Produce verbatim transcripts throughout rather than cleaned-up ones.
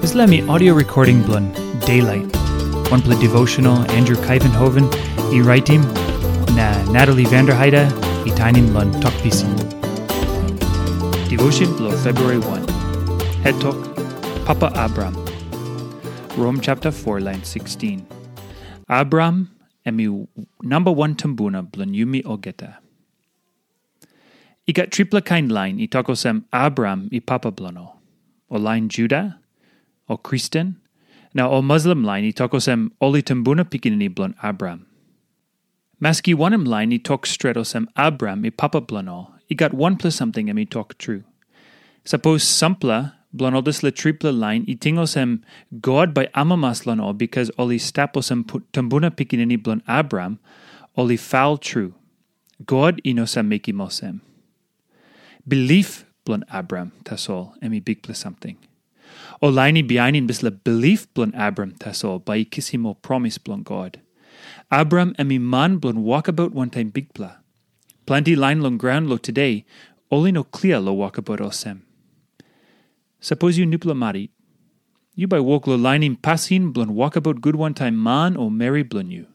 Dispela mi audio recording bilong Daylight, wanpela devotional Andrew Kaivenhoven i raitim, na Natalie Vanderheide i tainim long Tok Pisin. Devotion bilong February one. Het tok, Papa Abraham. Rom chapter four, line sixteen. Abraham em i namba wan tumbuna bilong yumi olgeta. I gat tripela kain lain i tok olsem Abraham i papa bilong ol. Ol lain Juda, ol Kristen, na ol Muslim lain i tok olsem ol i tumbuna pikinini bilong Abraham. Maski wanem lain i tok stret olsem Abraham i papa bilong ol, i gat wanpela samting em i tok tru. Sapos sampela bilong ol dispela tripela lain i ting olsem God bai amamas long ol bikas ol i stap olsem pu- tumbuna pikinini bilong Abraham, ol i faul tru. God i no save mekim olsem. Bilip bilong Abraham tasol em i bikpela samting. Ol lain i bihainim dispela bilip bilong Abraham tasol bai i kisim ol promis bilong God. Abraham em i man bilong wokabaut wantaim Bikpela. Planti lain long graun long tude, ol i no klia long wokabaut olsem. Sapos yu nupela marit, yu bai wok long lainim pasin bilong wokabaut gut wantaim man o meri bilong yu.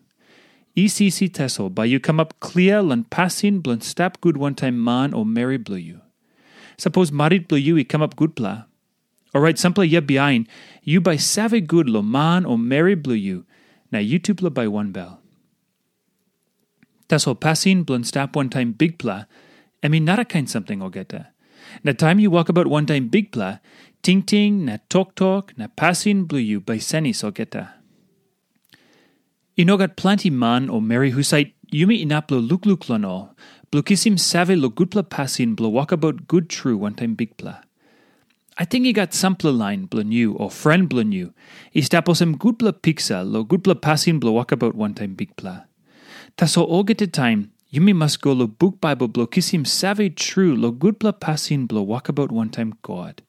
Isi isi tasol bai yu kamap klia long pasin bilong stap gut wantaim man o meri bilong yu. Sapos marit bilong yu i kamap gutpela, orait sampela yia bihain yu bai save gut long man o meri bilong yu, na yutupela bai wanbel. Tasol pasin bilong stap wantaim Bikpela, em i narakain samting olgeta. Na taim yu wokabaut wantaim Bikpela, tingting na toktok na pasin bilong yu bai senis olgeta. I no gat planti man o meri husat yumi inap long lukluk long ol, bilong kisim save long gutpela pasin bilong wokabaut gut tru wantaim Bikpela. Ating i gat sampela lain bilong yu o fren bilong yu i stap olsem gutpela piksa long gutpela pasin bilong wokabaut wantaim Bikpela. Tasol olgeta taim yumi mas go long buk Baibel bilong kisim save tru long gutpela pasin bilong wokabaut wantaim God.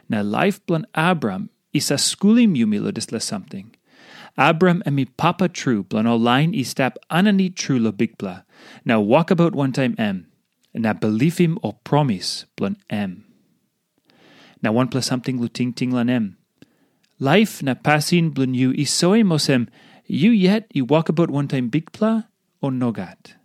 Na laip bilong Abraham i save skulim yumi long dispela samting. Abraham em i papa tru bilong ol lain i stap aninit tru long Bikpela, na wokabaut wantaim em, na bilipim ol promis bilong em. Na wanpela samting long tingting long em. Laip na pasin bilong yu i soim olsem yu yet i wokabaut wantaim Bikpela, o nogat?